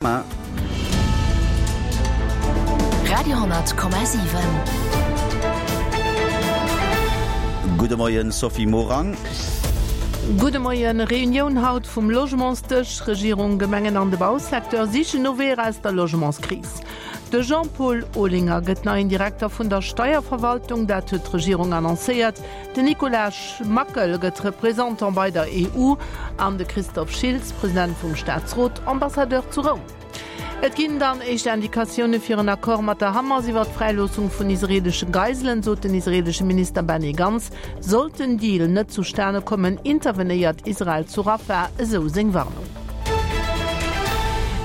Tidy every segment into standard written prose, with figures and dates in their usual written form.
Radio,7. Gudde Moien Sophie Morang. Gudde Moien. Reunioun haut vum Logementsdësch. Regierung, Gemengen an de Bausecteur sichen no Weeër aus der Logementskris. De Jean-Paul Olinger gëtt neien Direkter vun der Steierverwaltung, dat huet d'Regierung annoncéiert. Den Nicolas Mackel gëtt Représentant bei der EU an de Christophe Schiltz, President vum Staatsrot, Ambassadeur zu Roum. Et ginn dann éischt Indikatioune fir en Accord mat der Hamas iwwer d'Fräiloossung vun israeelesche Geiselen, sot den israeelesche Minister Benny Gantz. Sollt den Deal net zustane kommen, intervenéiert Israel zu Rafah, esou seng Warnung.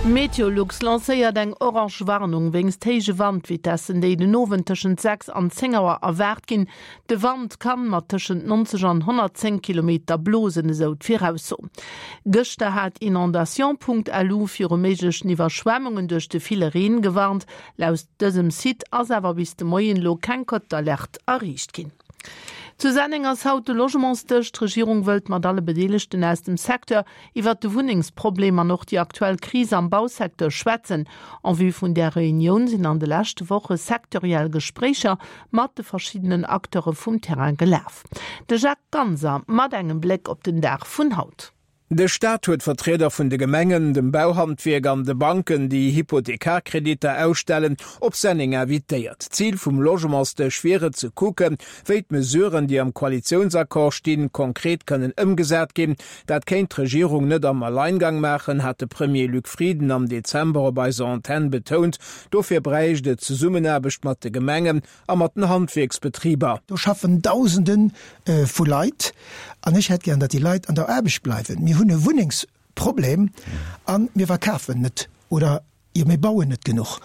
Meteolux lancéiert eng orange Warnung wéinst héije Wandvitessen, déi den Owend tëschent 6 an 10 Auer erwaart ginn. De Wand kann mat tëschent 90 an 110 Kilometer blosen, esou d'Virausso. Gëschter hat Inondation.lu viru méiglechen Iwwerschwemmungen duerch de ville Reen gewarnt. Laut dësem Site ass awer bis de Moien elo keng Cote d'alerte erreecht ginn. Zu Senneng ass haut de Logementsdësch. D'Regierung wëllt mat alle Bedeelegten aus dem Secteur iwwert de Wunnengsproblem an och déi aktuell Kris am Bausecteur schwätzen. En vue vun där Reunioun sinn an de leschte Woche sektoriell Gespréicher mat de verschiddenen Acteure vum Terrain gelaf. De Jacques Ganser mat engem Bléck op den Dag vun haut. De Staat huet Vertrieder vun de Gemengen, dem Bauhandwierk an de Banken, déi Hypothekarkreditter ausstellen, op Senneng invitéiert. Zil vum Logementsdësch wier et, ze kucken, wéi d'Mesuren, déi am Koalitiounsaccord stinn, konkret kënnen ëmgesat ginn. Dat kéint d'Regierung net am Alleingang maachen, hat de Premier Luc Frieden am Dezember op eiser Antenn betount. Dofir bräicht et Zesummenaarbecht mat de Gemengen a mat den Handwierksbetriber. Do schaffen Dausende vu Leit an ech hätt gären, datt déi Leit an der Aarbecht bleiwen. Mir hunn e Wunnengsproblem a mir verkafen net oder jo mir bauen net genuch.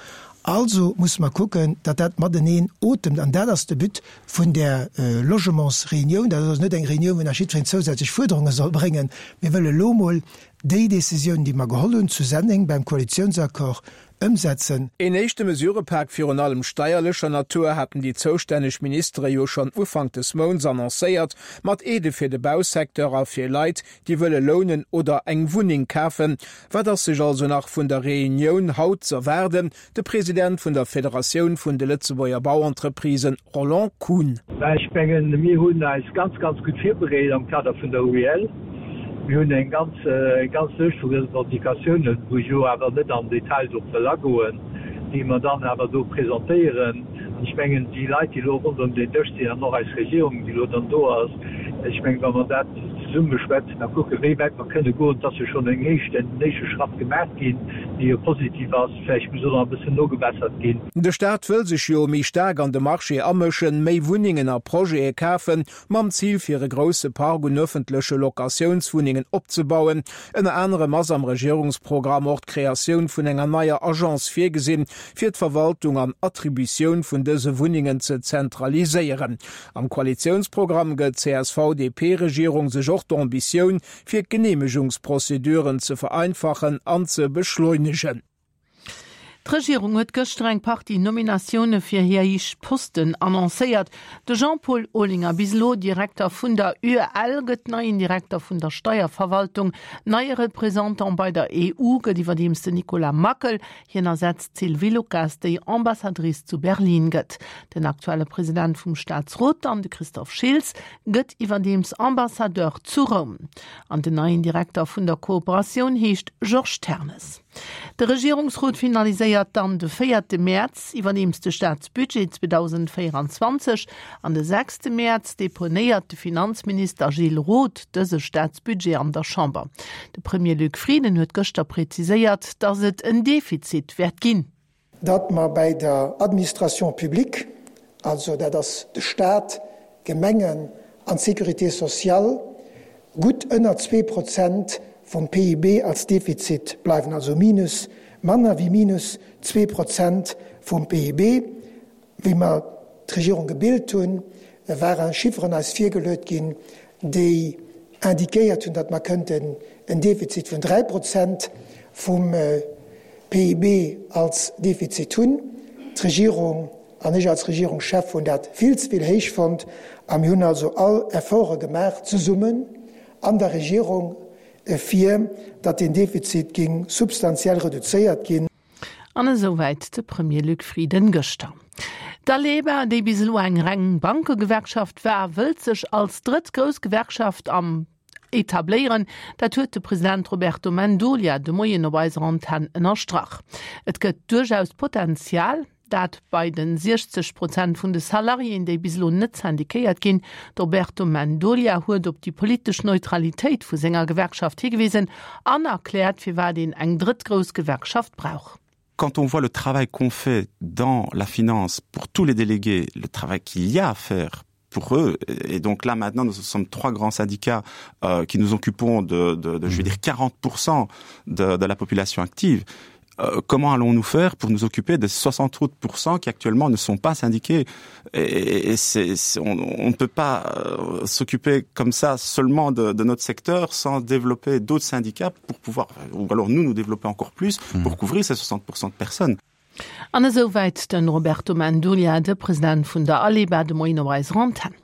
Also musse mer kucken, datt dat mateneen otemt an dat ass de But vun där Logementsreunioun. Dat ass also net eng Reunioun, wou nach jiddwereen zousätzlech Fuerderunge soll bréngen. Mir wëlle lo mol déi Décisioun, déi mer geholl hunn zu Senneng beim Koalitiounsaccord, ëmsetzen. Een éischte Mesurëpak, virun allem steierlecher Natur, haten déi zoustänneg Ministere jo schonn Ufank des Mounts annoncéiert, mat Aidë fir de Bausecteur a fir Leit, déi wëlle lounen oder eng Wunneng kafen. Wat ass sech also nach vun der Reunioun haut z'erwaarden? De President vun der Federatioun vun de Lëtzebuerger Bauentreprisen, Roland Kuhn. Mä ech mengen, mir hunn eis ganz, ganz gutt virbereet am Kader vun der UEL. Mir hunn eng ganz, eng ganz Lëscht vu Revendicatiounen, wou ech elo awer net am Detail drop wëll agoen, déi mer dann awer do presentéieren. An ech mengen, déi Leit, déi elo ronderëm deen Dësch sinn, an och eis Regierung, déi elo dann do ass, ech mengen, wa mer dat zesumme beschwätzen a kucken, wéi wäit mer kënne goen, et ass jo schonn eng éischt, en éischte Schratt gemaach ginn, dee jo positiv ass, vläicht muss och nach e bëssen nogebessert ginn. De Staat wëll sech jo méi staark an de Marché amëschen, méi Wunnengen a Projete kafen, mam Zil fir e grousse Park un ëffentleche Locatiounswunnengen opzebauen. Ënner anerem ass am Regierungsprogramm och d'Kreatioun vun enger neier Agence virgesinn, fir d'Verwaltung an Attributioun vun dëse Wunnengen ze zentraliséieren. Am Koalitiounsprogramm gëtt d'CSV-DP-Regierung sech och d'Ambitioun, fir d'Geneemegungsprozeduren ze vereinfachen an ze beschleunegen. D'Regierung huet gëschter eng Partie Nominatioune fir hir héich Posten annoncéiert. De Jean-Paul Olinger, bis elo Direkter vun der UEL, gëtt neien Direkter vun der Steierverwaltung. Neie Représentant bei der EU gëtt iwwerdeems den Nicolas Mackel. Hien ersetzt d'Sylvie Lucas, déi Ambassadrice zu Berlin gëtt. Den aktuelle President vum Staatsrot dann, de Christophe Schiltz, gëtt iwwerdeems Ambassadeur zu Roum. An den neien Direkter vun der Kooperatioun heescht Georges Ternes. De Regierungsrot finaliséiert dann de véierte Mäerz iwwerdeems de Staatsbudget 2024 an de sechste Mäerz deponéiert de Finanzminister Gilles Roth dëse Staatsbudget an der Chamber. De Premier Luc Frieden huet gëschter preziséiert, datt et en Defizit wäert ginn. Datt mer bäi der Administration publique, also dat ass de Stat, d'Gemengen an d'Sécurité sociale, gutt ënner 2% vum PIB als Defizit bleiwen, also minus, manner wéi minus 2% vum PIB. Wéi mer d'Regierung gebilt hunn, ware Chifferen eis virgeluet ginn, déi indiquéiert hunn, datt mer kënnten en Defizit vun 3% vum PIB als Defizit hunn. D'Regierung an ech als Regierungschef hunn dat vill ze vill héich fonnt a mir hunn also all Efforte gemaach, zesummen an der Regierung. fir datt deen Defizit géing substantiell reduzéiert ginn. An esouwäit de Premier Luc Frieden gëschter. D'Aleba, déi bis elo eng reng Bankegewerkschaft war, wëllt sech als drëtt grouss Gewerkschaft am etabléieren. Dat huet de President Roberto Mendolia de Moien op eiser Antenn ënnerstrach. Et gëtt duerchaus Potenzial. Dat bei den 60 Prozent vun de Salariéen, déi bis elo net syndiquéiert ginn. De Roberto Mendolia huet op déi politesch Neutralitéit vu senger Gewerkschaft higewisen an erkläert, firwat een eng drëtt grouss Gewerkschaft brauch. Quand on voit le travail qu'on fait dans la finance pour tous les délégués, le travail qu'il y a à faire pour eux et donc là maintenant nous sommes trois grands syndicats euh, qui nous occupons de, de, de je veux dire 40% de, de la population active euh, comment allons-nous faire pour nous occuper des 68% qui actuellement ne sont pas syndiqués et, et c'est, c'est, on, on ne peut pas euh, s'occuper comme ça seulement de, de notre secteur sans développer d'autres syndicats pour pouvoir ou alors nous nous développer encore plus mmh. pour couvrir ces 60% de personnes. An esouwäit de Roberto Mendolia, de President vun der Aleba, de Moien op eiser Antenn.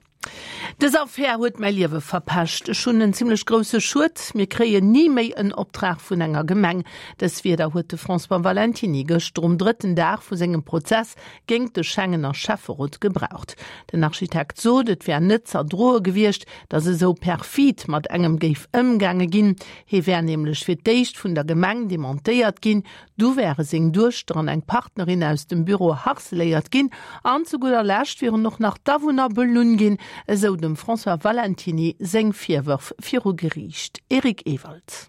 Dës Affär huet mäi Liewe verpescht. Ech hunn en zimlech grousse Schued. Mir kréien ni méi en Optrag vun enger Gemeng. Dës Wierder huet de François Valentiny gëschter um drëtten Dag vu sengem Prozess géingt de Schengener Schäfferot gebraucht. Den Architekt sot, et wär net z'erdroe gewiescht, datt esou perfid mat engem géif ëmgaange ginn. Hie wär nämlech fir d'éischt vun der Gemeng dementéiert ginn, Du wäre seng Duechter an eng Partnerin aus dem Büro harceléiert ginn an zu gudder Lescht wieren och nach d'Awunner belunn ginn, esou dem François Valentiny seng Virwërf viru Geriicht. Eric Ewald.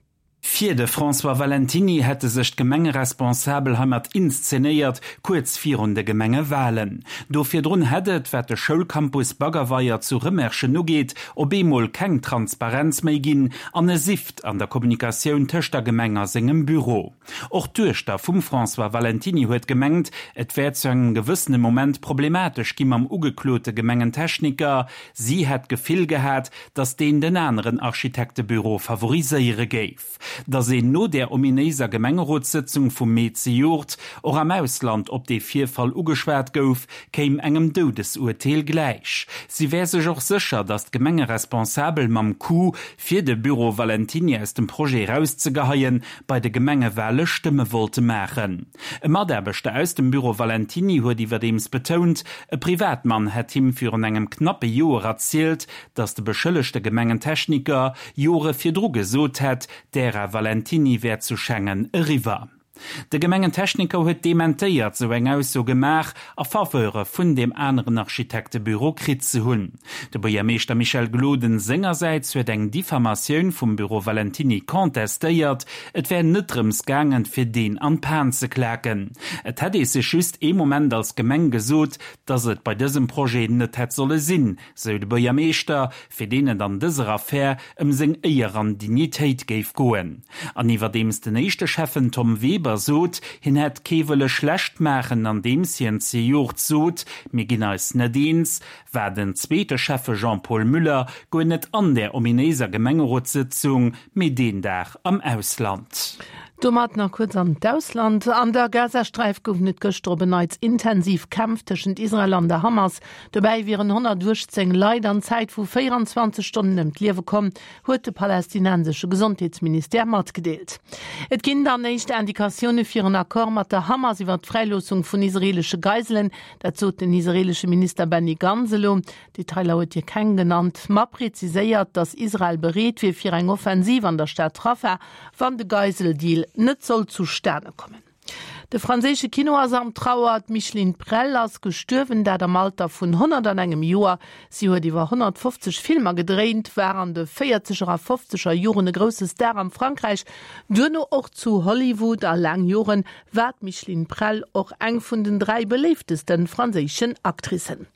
Fir de François Valentiny hätte sech d'Gemengeresponsabel heimat inszenéiert, kuerz virun de Gemengewalen. Do virdrun hätt et, wat de Schoulcampus Baggerweier zu Rëmerschen ugeet, op eemol keng Transparenz méi ginn an e Sift an der Kommunikatioun tëscht der Gemeng a sengem Büro. Och d'Duechter vum François Valentiny huet gemengt, et wär zu engem gewëssene Moment problematesch gi mam ugeklote Gemengentechniker. Si hätt d'Gefill gehat, datt deen den aneren Architektebüro favoriséiere géif. Datt een no där ominéiser Gemengerotssëtzung vum Mee zejoert och am Ausland op dee Virfall ugeschwat gouf, kéim engem Doudesurteel gläich. Si wär sech och sécher, datt d'Gemengeresponsabel mam Coup, fir de Büro Valentiny aus dem Projet erauszegeheien, bei de Gemengewale Stëmme wollte maachen. E Mataarbechter aus dem Büro Valentiny huet iwwerdeems betount, e Privatmann hätt him virun engem knappe Joer erzielt, datt de beschëllegte Gemengentechniker Jore virdru gesot hätt, d'Ära Valentiny wär zu Schengen eriwwer. De Gemengentechniker huet dementéiert, sou eng Ausso gemaach a Faveure vun deem aneren Architektebüro kritt ze hunn. De Buergermeeschter Michel Gloden sengersäits huet eng Diffamatioun vum Büro Valentiny contestéiert. Et wär net drëms gaangen, fir deen an d'Pan ze klaken. Et hätt ee sech just ee Moment als Gemeng gesot, datt et bei dësem Projet net hätt solle sinn, sou de Buergermeeschter, fir deen et an dëser Affär ëm seng Éier an Dignitéit géif goen. An iwwerdeems den éischte Schäffen Tom Weber sot, hien hätt kee wëlle schlecht maachen, andeems hien zejoert sot, mir ginn eis net eens, war den zweete Schäffe Jean-Paul Müller guer net an där ominéiser Gemengerotssëtzung, mee deen Dag am Ausland. Domat nach kuerz an d'Ausland. An der Gazasträif goufen et gëschter op en Neits intensiv Kämpf tëschent Israel an der Hamas. Dobäi wieren 118 Leit an Zäit vu 24 Stonnen ëm d'Liewe komm, huet de palästinensesche Gesondheetsministère matgedeelt. Et ginn dann éischt Indikatioune fir en Accord mat der Hamas iwwer d'Fräiloossung vun israeelesche Geiselen. Dat sot den israeelesche Minister Benny Gantz elo. Detailer huet hie keng genannt, ma preziséiert, datt Israel bereet wier fir eng Offensiv an der Stad Rafah, wann de Geiseldeal net sollt zustane kommen. De franséische Kino ass am Trauer. D'Micheline Prel ass gestuerwen, dat am Alter vun 101 Joer. Si huet iwwer 150 Filmer gedréint, war an de véierzeger a fofzeger Joren e grousse Star am Frankräich, duerno och zu Hollywood. A laang Joren war d'Micheline Prel och eng vun den 3 beléiftesten franséischen Actricen.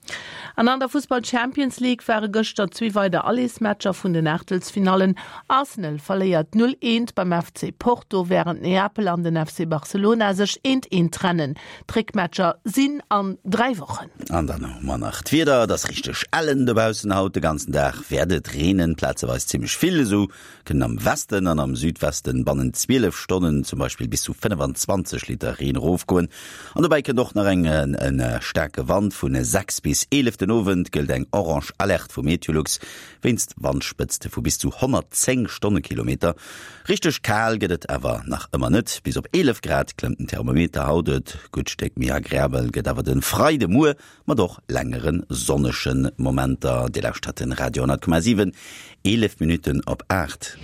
An an der Fussball Champions League ware gëschter zwee weider Allersmatcher vun den Aachtelsfinallen. Arsenal verléiert 0, 1 beim FC Porto, wärend Neapel an den FC Barcelona sech. Eent Eent trennen. D'Réckmatcher sinn an 3 Wochen. An dann hu mer nach d'Wieder, Et ass richteg ellen dobaussen haut. De ganzen Dag wäert et reenen, plazeweis zimmlech vill. Esou kënnen am Westen an am Südwesten bannent 12 Stonnen zum Beispill bis zu 25 Liter Reen erofgoen. An dobäi kënnt och nach eng en staarke Wand. Vun 6 bis 11 den Owend gëllt eng orange Alerte vu Meteolux wéinst Wandspëtzte vu bis zu 110 Stonnekilometer. Richteg kal gëtt et awer nach ëmmer net, bis op 11 Grad klëmmt den Thermometer haut. Et gutt Stéck méi agreabel gëtt awer de Freidemuer mat och längere sonnege Momenter. Dir lauschtert den Radio 10,7, 11 Minutten op 8.